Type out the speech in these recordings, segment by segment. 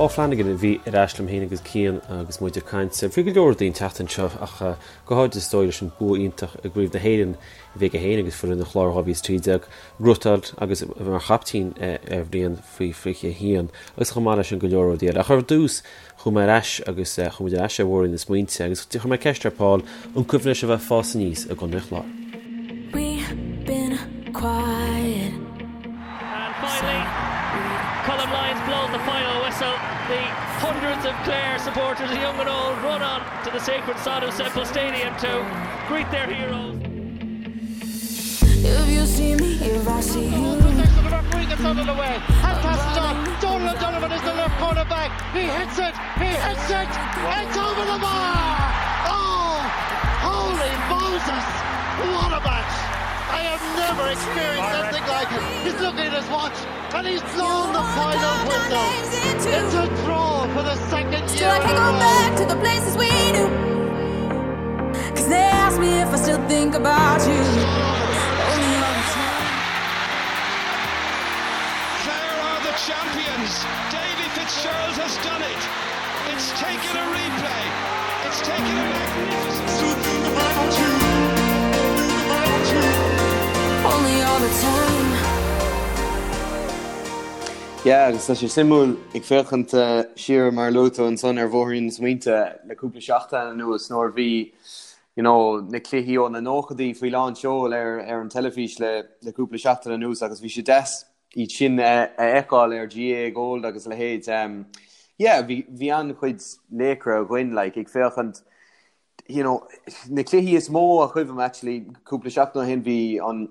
Paul Flanagan a bhí ar ais liom féin agus Cian agus muid ag caint faoi go leor rudaí an tseachtain seo ach go háirid is dóigh leis an bua iontach i gCraobh na hÉireann a bhí aige féin agus foireann an Chláir 2013 gnóthachtáil agus mar chaiptín ar bhliain faoi 21 agus chomh maith leis sin go leor rudaí eile. Ach ar dtús chuaigh mé ar ais agus chuaigh muid ar ais ar bhóithrín na smaointe agus chuir mé ceist ar Paul an cuimhin leis a bheith ag fás aníos i gContae an Chláir. We've been quiet. And finally, Colm Lyons blows the final whistle. The hundreds of Clare supporters, young and old, run on to the sacred sod of Semple Stadium to greet their heroes. If you see me, if I see you. The referee gets out of the way and passes on. Donal O'Donovan is the left corner back. He hits it. He hits it. It's over the bar. Oh, holy Moses. What a match. I have never experienced anything like it. He's looking at his watch and he's blown the final whistle. It's a draw for the second Still, year I in can't a go row. back to the places we knew. Cause they ask me if I still think about you. Only all the time. Clare are the champions. Davy Fitzgerald has done it. It's taken a replay. It's taken a magnificent. Only all the time. Yeah, agus tá sé suimiúil ag féachaint siar mar a luaigh tú ansan ar bhóithrín na smaointe le cúpla seachtain anuas nuair a bhí you know, na cluichí ó na nóchaidí faoi lán seoil ar ar an teilifís le le cúpla seachtain anuas agus bhí sé deas iad sin a fheiceáil ar GAA Gold agus a leithéid. Um, yeah, bhí bhí an-chuid laochra againn like, ag féachaint you know, na cluichí is mó a chuimhním actually cúpla seachtain ó shin bhí an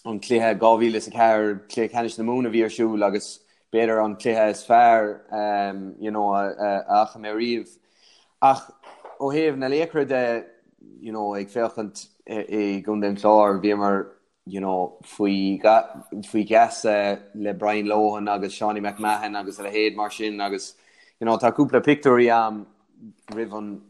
an cluiche 2004 cluiche ceannais na Mumhan a bhí ar siúl agus b'fhéidir an cluiche is fearr um, you know, a, a, a fhaca mé riamh. Ach ó thaobh na laochra de you know, ag féachaint i gContae an Chláir bhíomar you know, faoi faoi gheasa le Brian Lohan agus Seanie McMahon agus a leithéid mar sin agus you know, tá cúpla pictiúirí a'm roimh an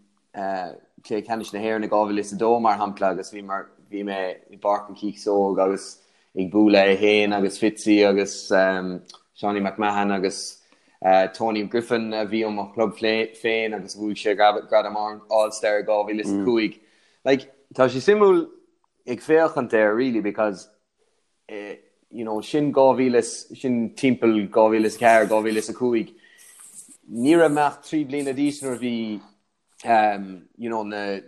Cluiche Ceannais na hÉireann i 2002 mar shampla agus bhí mar bhí mé i bPáirc an Chíosóg agus ag bualadh é féin agus Fitzy agus um, Seanie McMahon agus uh, Tony Griffin a bhí ó mo chlub féin agus bhuaigh sé gradam All-Star i 2005. Mm. Like, tá sé suimiúil ag féachaint air really because eh, you know, sin 2000 sin timpeall 2004 2005 ní raibh mé ach 3 bliana d'aois nuair a bhí um, you know, na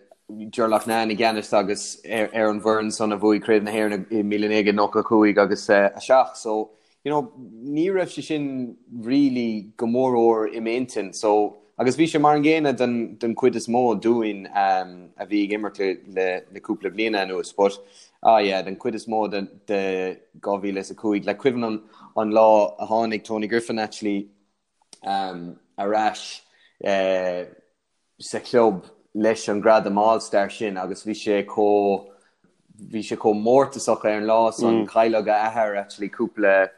Ger Loughnane i gceannas agus ar, ar an bhfoireann san a bhuaigh Craobh na hÉireann i 1995 agus uh, 7 so you know, ní raibh sé sin really go mórmhór i m'intinn so agus bhí sé mar an gcéanna den, den chuid is mó dúinn um, a bhí ag imirt le, le, le cúpla bliana anuas but ah yeah, den chuid is mó de, de 2005 le cuimhin an, an lá a tháinig Tony Griffin actually um, ar ais uh, sa chlub leis an gradam All-Star sin agus bhí sé chomh bhí sé chomh mórtasach ar an lá san mm. cailleadh a athair actually cúpla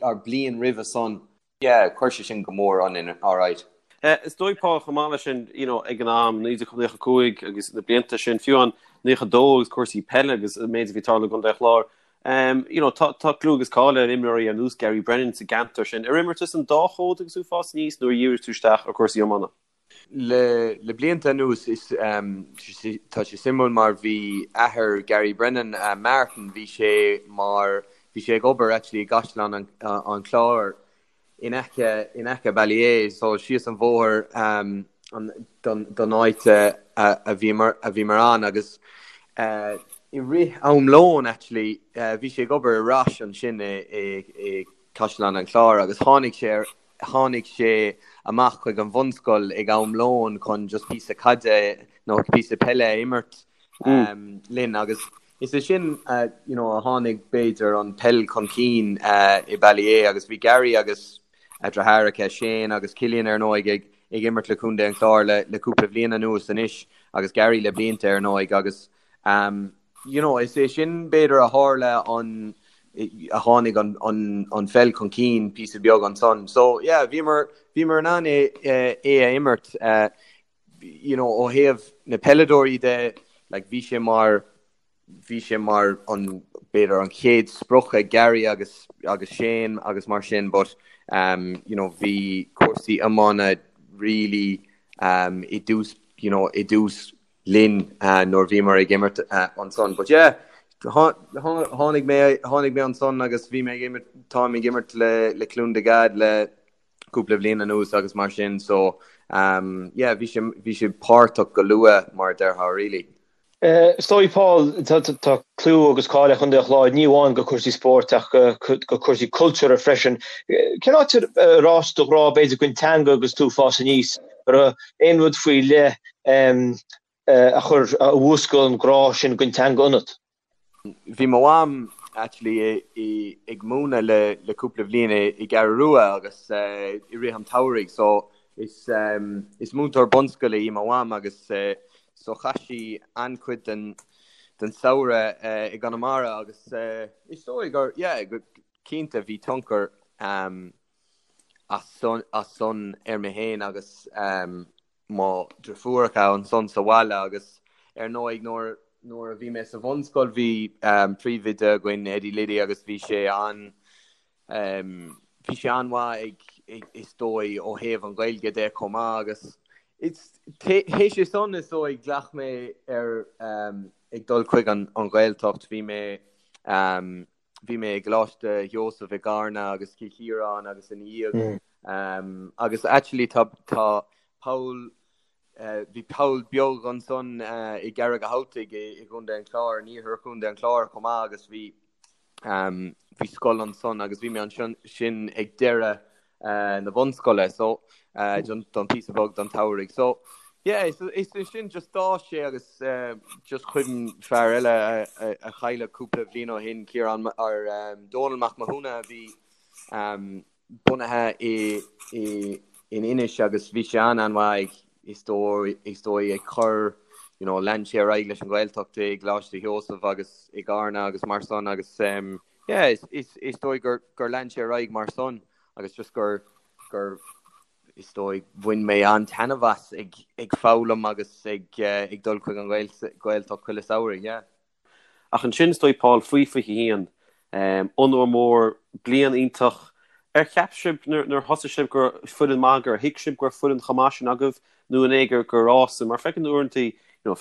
or bliain roimhe san. Yeah, chuir sé sin go mór ionainn alright. Eh, is dóigh Paul chomh maith leis sin you know, ag an am 1995 agus na blianta sin fiú an 92 agus cúrsaí peile agus an méid a bhí ag tarlú i gContae an Chláir. Um, you know, tá, tá clú agus cáil ar imreoirí ar nós Gary Brennan sa gceantar sin. Ar imir tú san dá chód agus tú ag fás aníos nó ar dhírigh tú isteach ar cúrsaí iomána? Le blianta anuas is tá sé suimiúil mar bhí athair Gary Brennan, Martin, bhí sé mar, bhí sé ag obair actually i gCaisleán an Chláir in aice, in aice Ballyea, so síos an bhóthar don áit a bhíomar, a bhíomar ann agus i rith am lóin actually bhí sé ag obair i Roche ansin i Caisleán an Chláir agus tháinig sé ar tháinig sé amach chuig an bhunscoil ag am lóin chun just píosa caide nó píosa peile a imirt linn agus is é sin you know a tháinig b'fhéidir an peil chun cinn i Ballyea agus bhí Gary agus a dheartháireacha Shane agus Cillian ar ndóigh ag ag imirt le Contae an Chláir le le cúpla bhliain anuas anois agus Gary le blianta ar ndóigh agus um, you know, is é sin b'fhéidir a tharla an a tháinig an, an, an pheil chun cinn píosa beag ansan. So yeah, bhíomar, bhíomar in ann é, é a imirt uh, you know, ó thaobh na peileadóirí de, like, bhí sé mar bhí sé mar an b'fhéidir an chéad sprioc ag Gary agus agus Shane agus mar sin, but. you know bhí cúrsaí iomána really i dtús you know i dtús linn nuair bhíomar ag imirt ansan. But yeah, tháinig mé tháinig mé ansan agus bhí mé ag imirt táim ag imirt le le Cluain na Gad le cúpla bliain anuas agus mar sin so um yeah bhí sé bhí sé páirteach go luath mar a déarfá really. Is dóigh, Paul, tá clú agus cáil ar Chontae an Chláir, ní amháin do chúrsaí spóirt ach do chúrsaí cultúrtha freisin. Cén áit ar fhás do ghrá, b'fhéidir, don teanga agus tú ag fás aníos? An raibh aon rud faoi leith a chuir, a mhúscail an grá sin don teanga ionat? Bhí mo mham actually ag múineadh le le cúpla bhliain i gCeathrú Rua agus i rith an tsamhraidh so is is múinteoir bunscoile í mo mham agus so chaith sí an-chuid den den samhradh i gConamara agus is dóigh gur yeah go cinnte bhí tionchar as san as san ar mé féin agus mo dhriofúracha ansan sa bhaile agus ar ndóigh nuair nuair a bhí mé sa bhunscoil bhí príomhoide againn Eddie Liddy agus bhí sé an bhí sé an-mhaith ag is dóigh ó thaobh an Ghaeilge de chomh maith agus it's théis é san is dóigh ghlac mé ar ag dul chuig an an Ghaeltacht bhí mé bhí mé i gColáiste Sheosaimh i gCarna agus Cill Chiaráin agus ina dhiaidh agus actually tá tá poll bhí poll beag ansan i gCarraig an Chabhaltaigh i gContae an Chláir, in iarthar Chontae an Chláir chomh maith agus bhí bhí scoil ansan agus bhí mé ansin sin ag deireadh na bunscoile so don píosa beag don tsamhraidh. So yeah is is sin just d'fhás sé agus just cuimhin fear eile a chailleadh cúpla bhliain ó shin Ciarán or Dónal Mac Mathúna a bhí bunaithe i i in Inis agus bhí sé an-an-mhaith ag is dóigh is dóigh ag cur you know lean sé ar aghaidh leis an Ghaeltacht i gColáiste Sheosaimh agus i gCarna agus mar san agus yeah is is is dóigh gur gur lean sé ar aghaidh mar san agus just gur gur is dóigh bhain mé an-taitneamh as ag ag foghlaim agus ag ag dul chuig an Ghaeltacht chuile samhradh, yeah. Ach ansin is dóigh Paul faoi 21, onóir mór, bliain iontach. Ar cheap sibh nuair a thosaigh sibh go raibh foireann maith, gur thuig sibh go raibh foireann chomh maith sin agaibh nó an é gur gur fhás mar feiceann tú uaireanta you know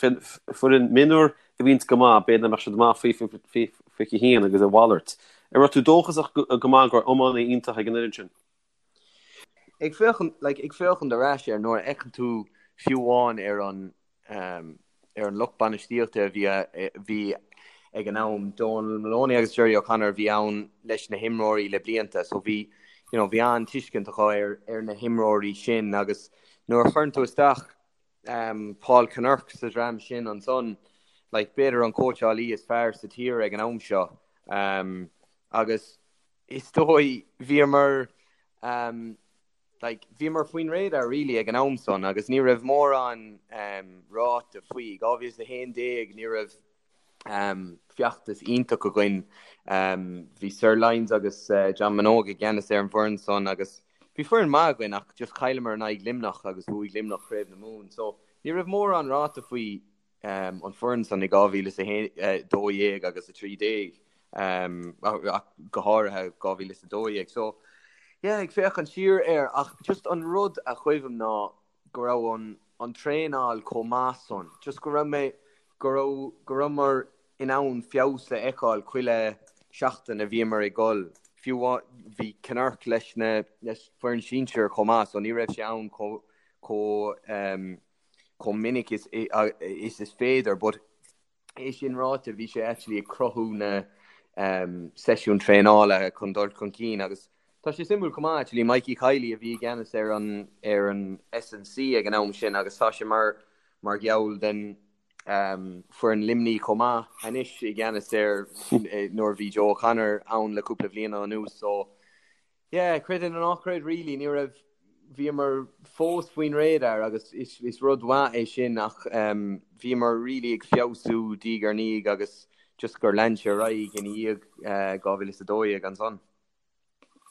foireann mionúir a bhíonns go maith, b'fhéidir nach mbeadh siad maith faoi 21 agus a mhalairt. An raibh tú dóchasach go maith go raibh iománaí iontach ag an fhoireann sin? Ag féachaint, like, ag féachaint ar ais air nuair a fheiceann tú fiú amháin ar an um, ar an lucht bainistíochta a bhí bhí ag an am, Donal Moloney agus Gerry O'Connor a bhí ann leis na himreoirí le blianta, so bhí you know, bhí an-tuiscint acu ar ar na himreoirí sin agus nuair a chuireann tú isteach um, Paul Kinnerk sa dream sin ansan, like, b'fhéidir an cóitseálaí is fearr sa tír ag an am seo um, agus is dóigh bhíomar um, like, bhíomar faoin radar really ag an am san agus ní raibh mórán um, ráite faoi. 2011 ní raibh um, feachtas iontach againn. Um, bhí Sir Lyons agus uh, John Minogue i gceannas ar an bhfoireann san agus bhí foireann maith againn ach just chailleamar in aghaidh Luimneach agus bhuaigh Luimneach Craobh na Mumhan. So ní raibh mórán ráite faoi um, an foireann san i 2012 agus 13 um, ach go háirithe 2012. So yeah, ag féachaint siar air ach just an rud a chuimhním ná go raibh an, an traenáil chomh maith san, just go raibh mé go raibh go rabhamar in ann feabhas a fheiceáil chuile seachtain a bhíomar ag dul. Fiú bhí Kinnerk leis na leis foireann sinsir chomh maith so ní raibh sé ann chomh chomh um, chomh minic is is is féidir but é sin ráite bhí sé actually ag cruthú na um, seisiún traenála chun dul chun cinn agus tá sé suimiúil chomh maith actually Mikey Kiely a bhí i gceannas ar an ar an S&C ag an am sin agus tá sé mar mar gheall den um, foireann Luimní chomh maith anois i gceannas ar nuair bhí Joe O'Connor ann le cúpla bliain anuas so Yeah, creid é nó ná creid really, ní raibh, bhíomar fós faoin radar agus is, is rud mhaith é sin ach um, bhíomar really ag feabhsú diaidh ar ndiaidh agus just gur lean sé ar aghaidh ina dhiaidh uh, 2012 ansan.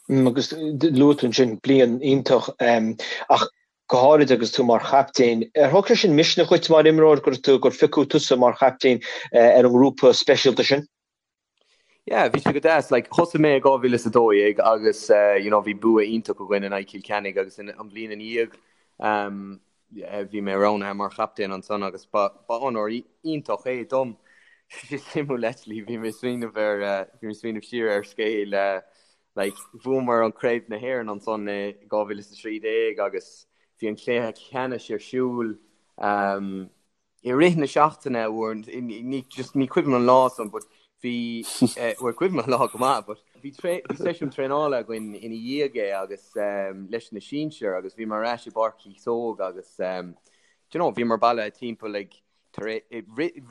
Mm, agus luaigh tú ansin bliain iontach um, ach go háirid agus tú mar chaptaen. Ar thug sé sin misneach dhuit mar imreoir gur tú gur phiocadh tusa mar chaptaen uh, ar an ngrúpa speisialta sin? Yeah, bhí sé go deas. Like, thosaigh mé i 2012 agus uh, you know, bhí bua iontach againn in aghaidh Cill Chainnigh agus in, an bhliain ina dhiaidh um, bhí mé roghnaithe mar chaptaen ansan agus ba, ba onóir iontach é dom. Sé suimiúil actually, bhí mé smaoineamh ar uh, bhí mé smaoineamh siar ar scéal uh, like, bhuamar an Craobh na hÉireann ansan i 2013 agus bhí an cluiche ceannais ar siúl um, I rith na seachtaine uair, ní just ní cuimhin an lá san but bhí bhuel cuimhin an lá go maith but bhí bhí seisiún traenála againn ina dhiaidh é agus leis na sinsir agus bhíomar ar ais i bPáirc Chíosóg agus do you know bhíomar bailithe timpeall ag tar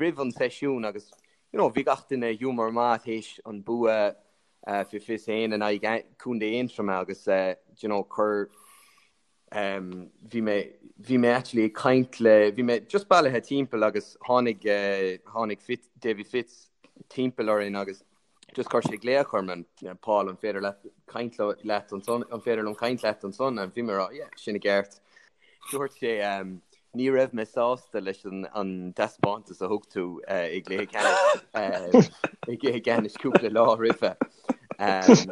roimh an seisiún agus you know bhí gach duine i giúmar maith théis an bua fé 21 in aghaidh Contae Aontroma agus do you know chuir Bhí mé, bhí mé actually ag caint le, bhí mé just bailithe timpeall agus tháinig, tháinig Fitz, Davy Fitz timpeall orainn agus just chuir sé glaoch orm, Paul, an féidir leat caint leat ansan, an féidir liom caint leat ansan? And bhí mé ag rá, yeah, sin i gceart. Dúirt sé, ní raibh mé sásta leis an, an taispeántas a thug tú i gcluiche ceannais, i gcluiche ceannais cúpla lá roimhe.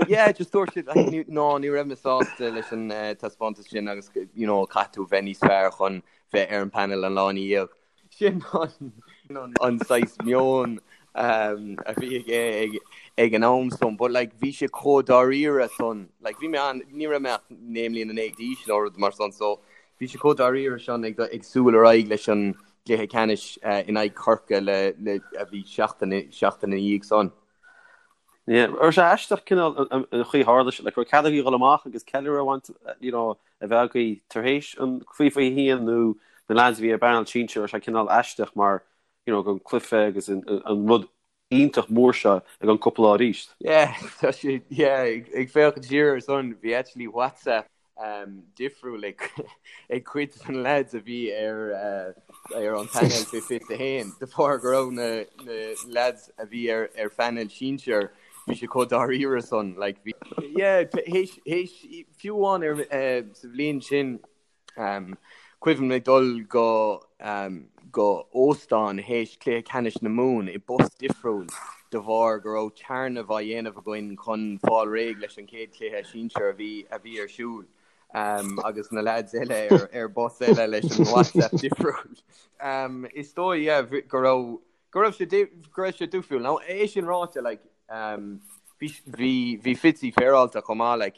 Yeah, just dúirt sé, like, ní, no, ní raibh mé sásta leis an uh, taispeántas sin agus you know, caithfidh tú bheith níos fearr chun bheith ar an panel an lá ina dhiaidh. Sin an, an, an saghas meon um, a bhí aige ag, ag an am san, but like, bhí sé chomh dáiríre san, like, bhí mé an, ní raibh mé ach naoi mbliana déag d'aois nó rud mar san, so bhí sé chomh dáiríre san ag, ag súil ar aghaidh leis an gcluiche ceannais uh, in aghaidh Chorcaí le, le, a bhí seachtain, seachtain ina dhiaidh san. Yeah, raibh sé aisteach cineál an chaoi a tharla sé, like raibh cead agaibh dhul amach agus ceiliúradh a bhaint, you know, a bheith agaibh tar éis an chraobh 21 nó na lads a bhí ar an bpainéal sinsir, raibh sé cineál aisteach mar, you know, an cluiche agus an rud iontach mór seo i gceann cúpla lá arís. Yeah, tá sé, yeah, ag féachaint siar ar san, bhí actually WhatsApp difriúil ag cuid de na lads a bhí ar ar an phainéal fé 21 de bharr go raibh na na lads a bhí ar ar phainéal sinsir bhí sé chomh dáiríre san like bhí yeah théis théis fiú amháin ar sa bhliain sin Cuimhin liom dul go go óstán théis cluiche ceannais na Mumhan i bus difriúil de bharr go raibh téarnamh á dhéanamh againn chun fáil réidh leis an chéad chluiche sinsir a bhí a bhí ar siúl agus na lads eile ar ar bus eile leis an WhatsApp difriúil. Is dóigh yeah go raibh go raibh sé go raibh sé difriúil. Now é sin ráite like bhí bhí bhí Fitzy féaráilte chomh maith like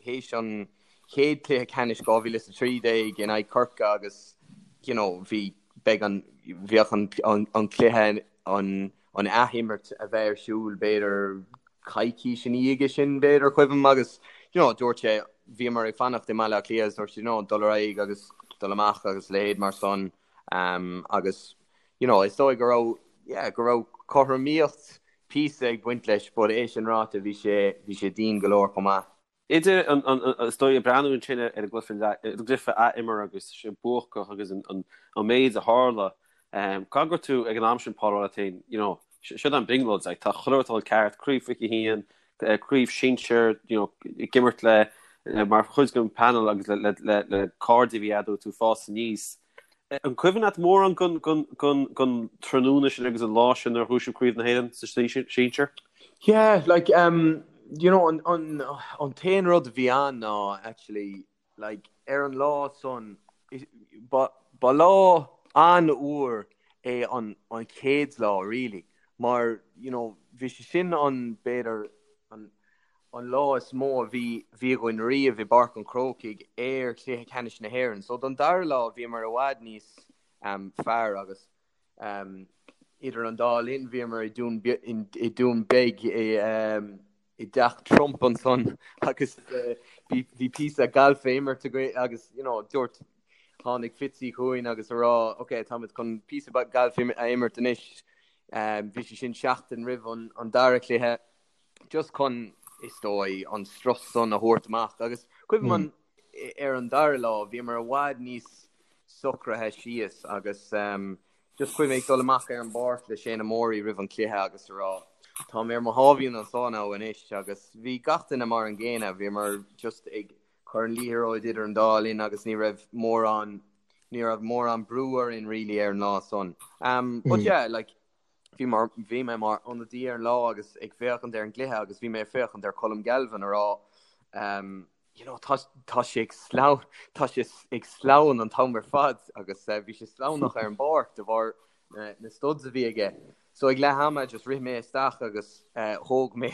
théis an chéad cluiche ceannais 2013 in aghaidh Corcaigh agus you know bhí beidh an bheadh an an an cluiche an an athimirt a bheith ar siúl b'fhéidir coicís ina dhiaidh sin b'fhéidir cuimhin agus you know dúirt sé bhíomar ag fanacht i mBaile Átha Cliath agus dúirt sé you know dul ar aghaidh agus dul amach agus leithéid mar san um, agus you know is dóigh go raibh yeah go raibh cothromaíocht píosa ag baint leis but é sin ráite bhí sé bhí sé dian go leor chomh maith. Idir an, is dóigh, ag breathnú ansin ar an gcluiche athimeartha agus sé buacach agus an méid a tharla, caithfidh go raibh tú ag an am sin, Paul, ag rá leat féin, you know, seo an brionglóid, like, tá chuile rud ag dul ceart, craobh 21, craobh sinsir, you know, ag imirt le, mar chuid den panel agus le, le, le cairde a bhí agat tú ag fás aníos. An cuimhin leat mórán den tráthnóna sin agus an lá sin nuair a ghnóthaigh sibh Craobh na hÉireann sa sinsir? Yeah, like, um, you know, an, an, an t-aon rud a bhí ann ná, actually, like, ar an lá san, ba, ba lá an-fhuar é an, an chéad lá, really, mar, you know, bhí sé sin an, b'fhéidir, an, an lá is mó a bhí bhí againn riamh i bPáirc an Chrócaigh ar chluiche ceannais na hÉireann. So don dara lá bhíomar i bhfad níos um, fearr agus um, idir an dá linn bhíomar i Dún, i Dún Beag i, um, i dteach Trump ansan agus uh, bhí, bhí píosa galf á imirt againn agus you know, dúirt tháinig Fitzy chugainn agus a rá ok táimid chun píosa galf a imirt anois. Um, bhí sé sin seachtain roimh an, an dara cluiche just chun, is dóigh, an strus san a thabhairt amach. Agus cuimhin liom ar an dara lá, bhíomar i bhfad níos socraithe síos agus just cuimhin ag dul amach ar an bpáirc le Shane Morey roimh an chluiche agus a rá, tá mé ar mo sháimhín anseo now anois agus bhí gach duine mar an gcéanna, bhíomar just ag cur an liathróid idir an dá linn agus ní raibh mórán, ní raibh mórán brú orainn really ar an lá san. But yeah, like, Bhí mar bhí mé mar ionadaí ar an lá agus ag féachaint ar an gcluiche agus bhí mé ag féachaint ar Colm Galvin a rá um, you know, tá, tá sé ag sleamh, tá sé ag sleamhain an t-am ar fad agus uh, bhí sé sleamhnach ar an bpáirc de bharr na, na studs a bhí aige. So ag leath ama just rith mé isteach agus uh, thóg mé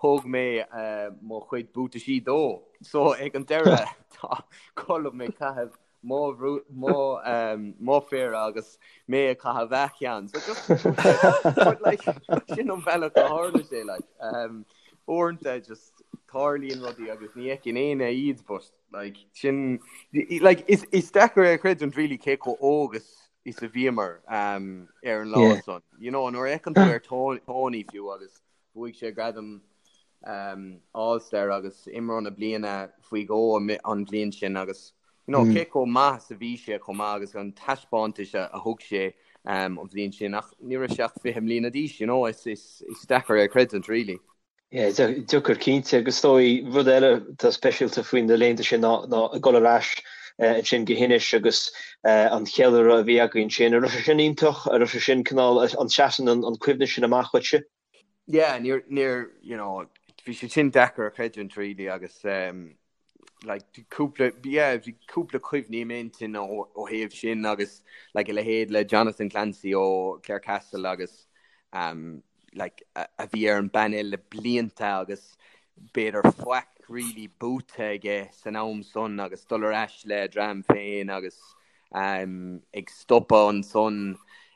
thóg mé uh, mo chuid buataisí dó. So ag an deireadh tá Colm ag caitheamh mo mo um, mo phéire agus mé ag caitheamh a cheann. So just but like sin an bealach a tharla sé like um, uaireanta just tarlaíonn rudaí agus ní fheiceann éinne iad but like sin like is is deacair a chreidiúint really cé chomh óg is is a bhíomar um, ar an lá yeah. san. You know, nuair a fheiceann tú ar Tony fiú agus Bhuaigh sé gradam All Star agus imreoir na bliana faoi dhó an bhliain sin agus you know, cé chomh maith is a bhí sé chomh maith agus an taispeántas a thug sé an bhliain sin ach ní raibh sé ach 20 mbliana d'aois, you know, is, is, is deacair é a chreidiúint really. Yeah, deacair cinnte agus is dóigh rud eile atá speisialta faoi na laethanta sin ná ná ag dul ar ais ansin go hInis agus an cheiliúradh a bhí againn ansin. An raibh sé sin iontach? An raibh sé sin cineál an seasann an cuimhne sin amach dhuitse? Yeah, níor, níor, you know, bhí sé sin deacair a chreidiúint really agus um, like, cúpla, yeah, bhí cúpla cuimhní i m'intinn ó, ó thaobh sin agus like, a leithéid le Jonathan Clancy ó Clarecastle agus um, like, a, a bhí ar an bpainéal le blianta agus b'fhéidir faic really buaite aige san am san agus dul ar ais le dream féin agus ag stopadh ansan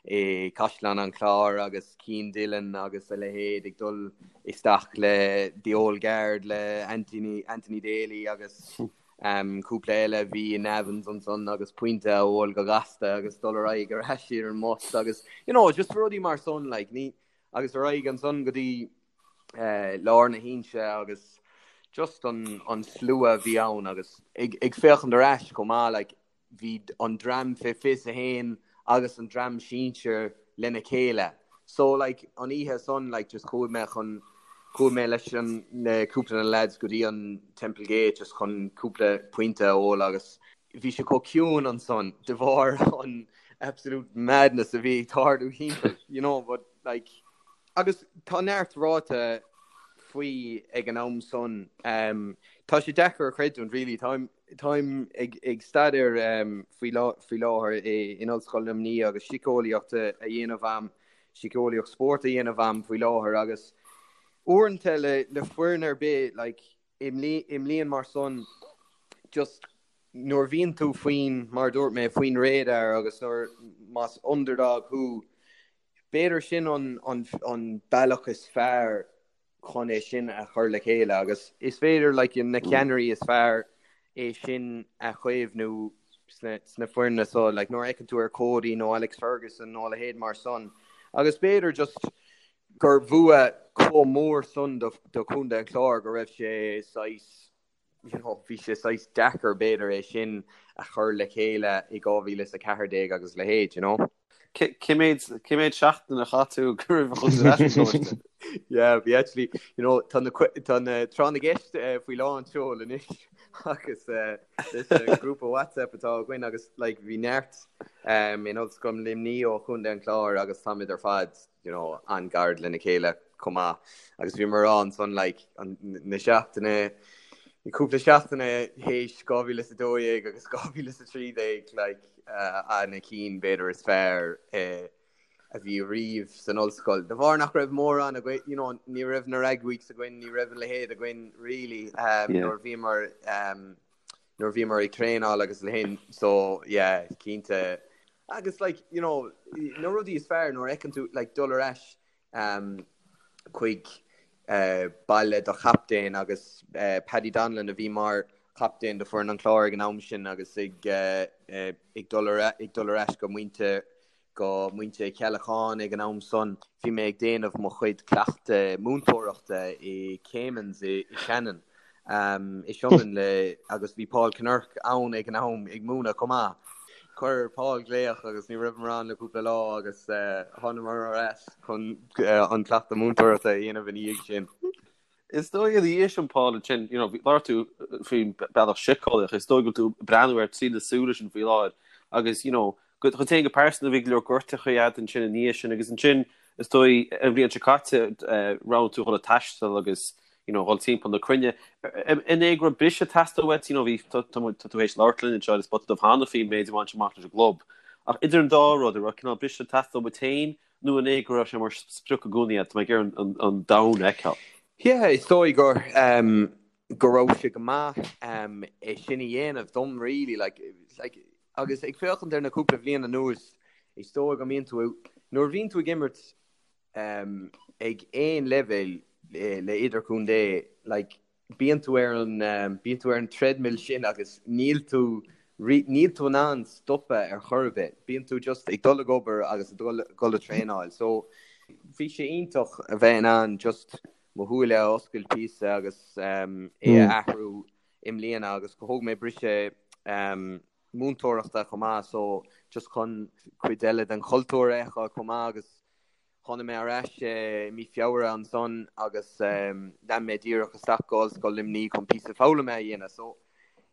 i Caisleán an Chláir agus Cian Dillon agus a leithéid ag dul isteach le The Old Guard le Anthony, Anthony Daly agus cúpla eile a bhí i Nevin's ansan agus pointe a ól go gasta agus dul ar aghaidh ar ais ar an mbus agus you know just rudaí mar san like ní agus ar aghaidh ansan go dtí lár na hInse agus just an an slua a bhí ann agus ag ag féachaint ar ais chomh maith like bhí an dream fé 21 agus an dream sinsir lena chéile. So like an oíche san like just chuaigh mé chun chuaigh mé leis an le cúpla de na lads go dtí an Temple Gate just chun cúpla pointe a ól agus bhí sé chomh ciúin ansan de bharr an absolute madness a bhí ag tarlú thimpeall you know but like Agus tá neart ráite faoi ag an am san. Tá sé deacair a chreidiúint really. Táim táim ag ag staidéar faoi faoi láthair in Ollscoil Luimnigh agus síceolaíocht a dhéanamh a'm, síceolaíocht spóirt a dhéanamh a'm faoi láthair agus uaireanta le le foireann ar bith like i mbliain mar san just nuair a bhíonn tú faoin, mar a dúirt mé, faoin radar agus nuair más underdog thú B'fhéidir sin an bealach is fearr chun é sin a chur le chéile agus is féidir like na ceannairí is fearr é sin a chaomhnú sna foirne so like nuair a fheiceann tú ar Cody nó Alex Ferguson nó a leithéid mar san agus b'fhéidir just gur bhua chomh mór san do Chontae an Chláir go raibh sé saghas you know, bhí sé saghas deacair b'fhéidir é sin a chur le chéile i 2014 agus a leithéid, you know. Cé méid, cé méid seachtain a chaith tú go raibh a chun ar ais an gcoláiste? Yeah, bhí actually, you know, tá na, tá na tráth na gceist eh, faoi lán tseoil anois agus eh, leis an grúpa WhatsApp atá againn agus like, bhí neart um, in Ollscoil Luimnigh ó Chontae an Chláir agus táimid ar fad you know, an-ghar lena chéile chomh maith. Agus bhíomar ag rá ansan like, an, na seachtaine, cúpla seachtaine théis 2012 agus 2013 like, uh, na cinn b'fhéidir is fearr eh, a bhí riamh san ollscoil. De bharr nach raibh mórán againn, you know, ní raibh na rag weeks againn, ní raibh a leithéid againn really um, yeah. nuair bhíomar um, nuair bhíomar ag traenáil agus a leithéid so yeah, cinnte Agus like, you know, na rudaí is fearr nuair a fheiceann tú like dul ar ais um, chuig uh, baile do chaptaen agus uh, Paddy Donlan a bhí mar chaptaen do foireann an Chláir ag an am sin agus ag, uh, uh, ag dul ar, ag dul ar ais go Muintir go Muintir Cheallacháin ag an am san. Bhí mé ag déanamh mo chuid cleachtadh múinteoireachta i Caimin's i, i Shannon. I Sionainn le agus bhí Paul Kinnerk ann ag an am ag múineadh chomh maith. Chuir Paul glaoch agus ní raibh mé ann le cúpla lá agus thánamar ar ais chun an cleachtadh múinteoireachta a dhéanamh ina dhiaidh sin. Is dóigh ina dhiaidh sin Paul ansin, you know, labhair tú faoin bealach síceolaíoch, is dóigh go bhfuil tú ag breathnú air trí na súile sin faoi láthair agus, you know, go dhuit féin go pearsanta bhí go leor gortachaí agat ansin ina dhiaidh sin agus ansin. Is dóigh an bhliain seo caite roghnaigh tú dhul ag taisteal agus you know dhul timpeall na cruinne. An é go raibh briseadh ag teastáil uait, you know bhí tá tá tú théis labhairt linn anseo ar An Spota Dubh cheana faoin méid a bhain amach leis an gclub. Ach idir an dá rud, an raibh cineál briseadh ag teastáil uait féin nó an é go raibh sé mar sprioc i gcónaí agat, tá mé ag iarraidh an an domhan a fheiceáil. Yeah, is dóigh gur um, go raibh sé go maith um, é sin a dhéanamh dom really like, like, agus ag féachaint ar na cúpla bhliain anuas is dóigh go mbíonn tú nuair a bhíonn tú ag imirt um, ag aon leibhéal le, le idirchontae like, bíonn tú ar an um, bíonn tú ar an treadmill sin agus níl tú níl tú in ann stopadh ar chor ar bith. Bíonn tú just ag dul ag obair agus ag dul dul ag traenáil. So bhí sé iontach a bheith in ann just mo shúile a oscailt píosa agus um, é a athrú i mbliana agus go thóg mé briseadh um, múinteoireachta chomh maith so just chun cuid eile den chultúr a fheiceáil chomh maith agus tháinig mé ar ais i mí Feabhra ansan agus lean mé díreach isteach go Ollscoil Luimnigh chun píosa foghlama a dhéanamh so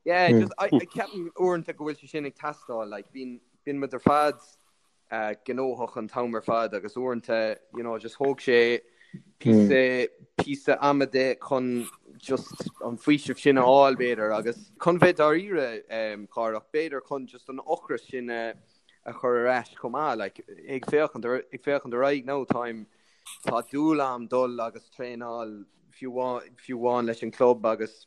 yeah just I, I ceapaim uaireanta go bhfuil sé sin ag teastáil like bíonn bíonn muid ar fad gnóthach an t-am ar fad agus uaireanta you know just thóg sé píosa píosa ama de chun just an faoiseamh sin a fháil b'fhéidir agus chun bheith dáiríre um, Cárthach b'fhéidir chun just an ocras sin a, a chur ar ais chomh maith like ag féachaint ar ag féachaint ar aghaidh now táim tá dúil a'm dul agus traenáil fiú fiú amháin leis an club agus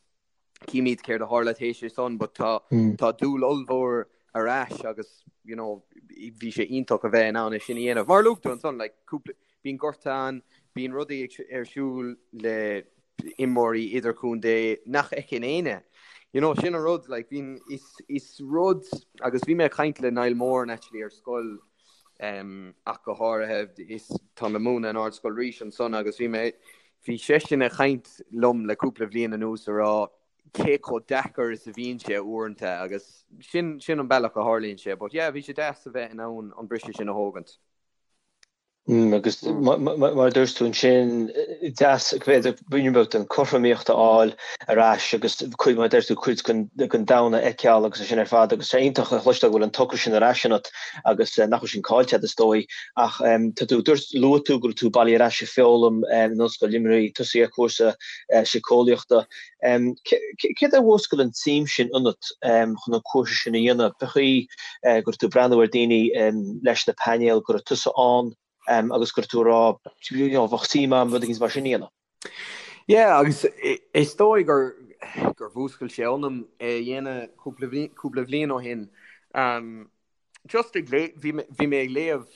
Címid céard a tharla théis é san but tá tá dúil ollmhór ar ais agus you know bhí sé iontach a bheith in ann é sin a dhéanamh. Mar a luaigh tú ansan like cúpla bíonn gorta ann, bíonn rudaí ag ar siúl le imreoirí idirchontae nach fheiceann éinne. You know sin an rud like bíonn is is rud agus bhí mé ag caint le Niall Moran actually ar scoil um, ach go háirithe is tá mé ag múineadh in Ardscoil Rís ansan agus bhí mé bhí seisean ag caint liom le cúpla bhliain anuas a rá cé chomh deacair is a bhíonn sé uaireanta agus sin sin an bealach a tharlaíonn sé but yeah bhí sé deas a bheith in ann an briseadh sin a thógaint. Mm, agus mar a dúirt tú ansin, deas b'fhéidir ruainne beag den chothromaíocht a fháil ar ais agus cuid, mar a deir tú, cuid den domhan a fheiceáil agus é sin ar fad agus tá iontach a chloisteáil go bhfuil an t-ocras sin ar ais ionat agus nach bhfuil sin caillte agat is dóigh ach tá tú, dúirt, luaigh tú go bhfuil tú bailithe ar ais ag foghlaim in Ollscoil Luimnigh, tosaithe ar chúrsa síceolaíochta. Céard a mhúscail an tsuim sin ionat chun an cúrsa sin a dhéanamh? Cén chaoi go raibh tú ag breathnú ar daoine leis na painéil, go raibh tusa ann agus go raibh tú ag rá, you know, bheadh suim agam rud éigin mar sin a dhéanamh? Yeah, agus is dóigh gur gur mhúscail sé ionam é a dhéanamh cúpla cúpla bhliain ó shin. Just ag lé bhí bhí mé ag léamh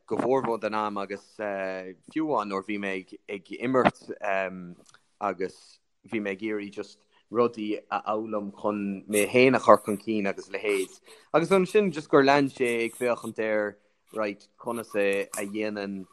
go mórmhór den am agus fiú amháin nuair bhí mé ag ag imirt agus bhí mé ag iarraidh just rudaí a fhoghlaim chun mé féin a chur chun cinn agus a leithéid. Agus ansin just gur lean sé ag féachaint ar right conas a a dhéanann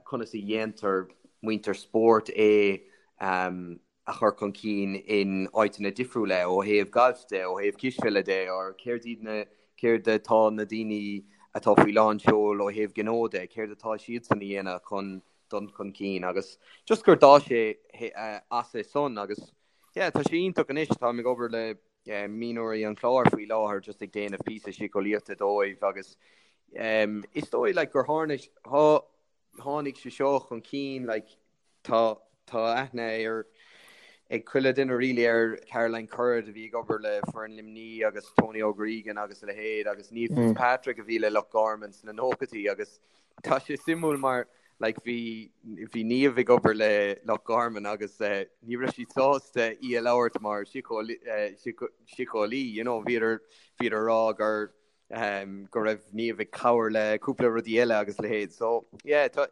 conas a dhéantar muintir spóirt é a chur chun cinn in áiteanna difriúla ó thaobh gailf de, ó thaobh cispheile de, or céard iad na, céard atá na daoine atá faoi lán seoil ó thaobh gnó de, céard atá siadsan a dhéanamh chun dul chun cinn agus just gur d'fhás sé as é san agus yeah tá sé iontach anois, táim ag obair le mionúirí an Chláir faoi láthair just ag déanamh píosa síceolaíochta dóibh agus is dóigh like gur tháinig, tháinig sé seo chun cinn like Tá tá aithne ar ag chuile duine really ar Caroline Currid a bhí ag obair le foireann Luimní agus Tony O'Gregan agus a leithéid agus Niamh Fitzpatrick a bhí le Loch Garman sna nóchaidí agus tá sé suimiúil mar like bhí bhí Niamh ag obair le Loch Garman agus eh, ní raibh siad sásta í a labhairt mar síceolaí you know bhíodar bhíodar ag rá gur um, go raibh Niamh ag cabhair le cúpla rudaí eile agus a leithéid. So yeah, tá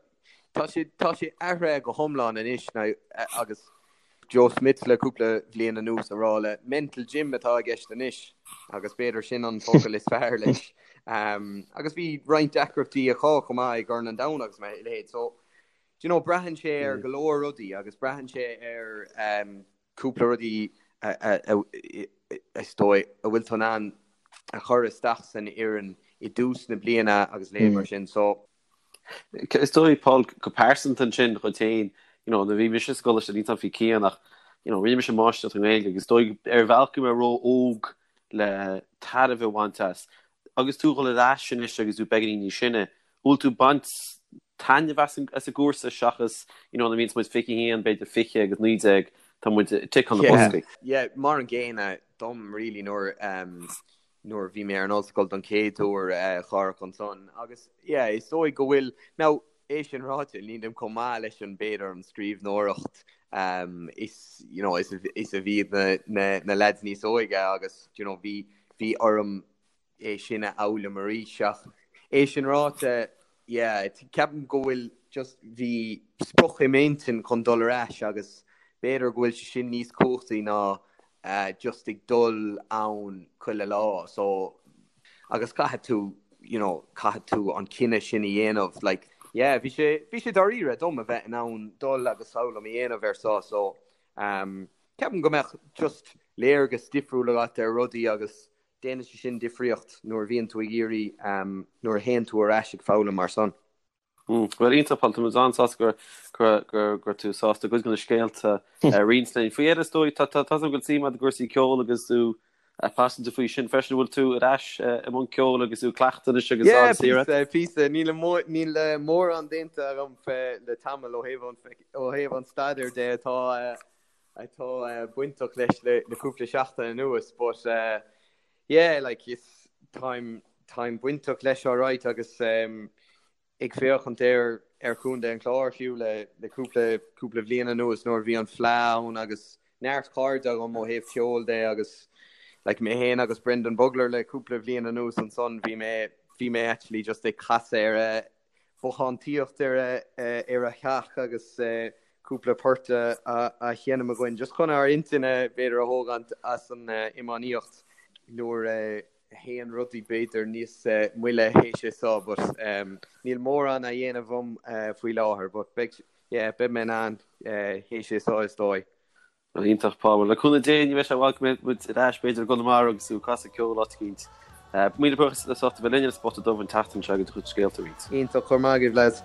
tá sé tá sé athraithe go hiomlán anois now, agus Joe Schmidt le cúpla bhliain anuas a rá le mental gym atá i gceist anois agus b'fhéidir sin an focal is fearr leis. Um, agus bhí roinnt deacrachtaí acu chomh maith i gCorn an Domhain agus a leithéid. So do you know, braitheann sé ar go leor rudaí agus braitheann sé ar um, cúpla rudaí is dóigh a bhfuil tú in ann a chur isteach san fhoireann i dtús na bliana agus a leithéid mar sin. So. Is dóigh, Paul, go pearsanta ansin dhuit féin, you know, nuair a bhí mise sa gcoláiste níl a fhios agam faoi Cian ach, you know, rinne mise máistreacht i nGaeilge agus is dóigh ar bhealach go raibh mé ró-óg le tairbhe a bhaint as. Agus tú ag dul ar ais anois agus tú beagáinín níos sine, bhfuil tú ag baint. taitneamh as an gcúrsa seachas you know nuair a bhíonns muid 21, b'fhéidir 20 agus 19, tá muid ag ticeáil na boscaí. Yeah, mar an gcéanna dom really nuair nuair a bhí mé ar an ollscoil don chéad uair a Chárthach ansan agus yeah is dóigh go bhfuil now é sin ráite nílim chomh maith leis an b'fhéidir an scríbhneoireacht um, is you know is is a bhí na na na lads níos óige agus you know bhí bhí orm é sin a fhoghlaim arís ach é sin ráite yeah ceapaim go bhfuil just bhí sprioc i m'intinn chun dul ar ais agus b'fhéidir go bhfuil sé sin níos cumhachtaí ná just ag dul ann chuile lá so agus caithfidh tú you know caithfidh tú an cinneadh sin a dhéanamh like yeah bhí sé bhí sé dáiríre dom a bheith in ann dul agus foghlaim a dhéanamh ar so so um ceapaim go mbeadh just léargas difriúil agat ar rudaí agus déanann sé sin difríocht nuair a bhíonn tú ag iarraidh nuair a théann tú ar ais ag foghlaim mar san. Bhuel, iontach, Paul, tá muid an-sásta go raibh tú sásta cuid de na scéalta a roinnt linn. Faoi dheireadh, is dóigh, tá a fhios agam go bhfuil suim agat i gcúrsaí ceoil agus tú paiseanta faoi sin freisin. An bhfuil tú ar ais i mbun ceoil agus tú ag cleachtadh anois agus Yeah, píosa, píosa. Níl níl mórán déanta agam le tamall ó thaobh an ó thaobh an staidéir de atá atá bainteach leis le cúpla seachtain anuas but yeah like is táim táim bainteach leis alright agus um, ag féachaint ar ar Chontae an Chláir fiú le le cúpla cúpla bhliain anuas nuair a bhí an Fleadh ann agus neart cairde agam ó thaobh ceoil de agus like mé féin agus Brendan Bugler le cúpla bhliain anuas ansan bhí mé bhí mé actually just ag casadh ar a bothántaíocht ar ar a theach agus cúpla port a sheinm againn just chun ár intinn b'fhéidir a thógaint as an iomaíocht nuair a théann rudaí b'fhéidir níos moille théis é seo but níl mórán á dhéanamh agam faoi láthair but beidh yeah beidh mé in ann théis é seo is dóigh. Bhuel, iontach, Paul. Le cúnamh Dé, ní bheidh sé i bhfad go mbeidh muid ar ais, b'fhéidir, i gConamara agus tú ag casadh ceoil áit eicínt. Míle buíochas as ucht a bheith linn ar an Spota Dubh an tseachtain seo agus do chuid scéalta a roinnt. Iontach, go raibh maith agaibh, lads.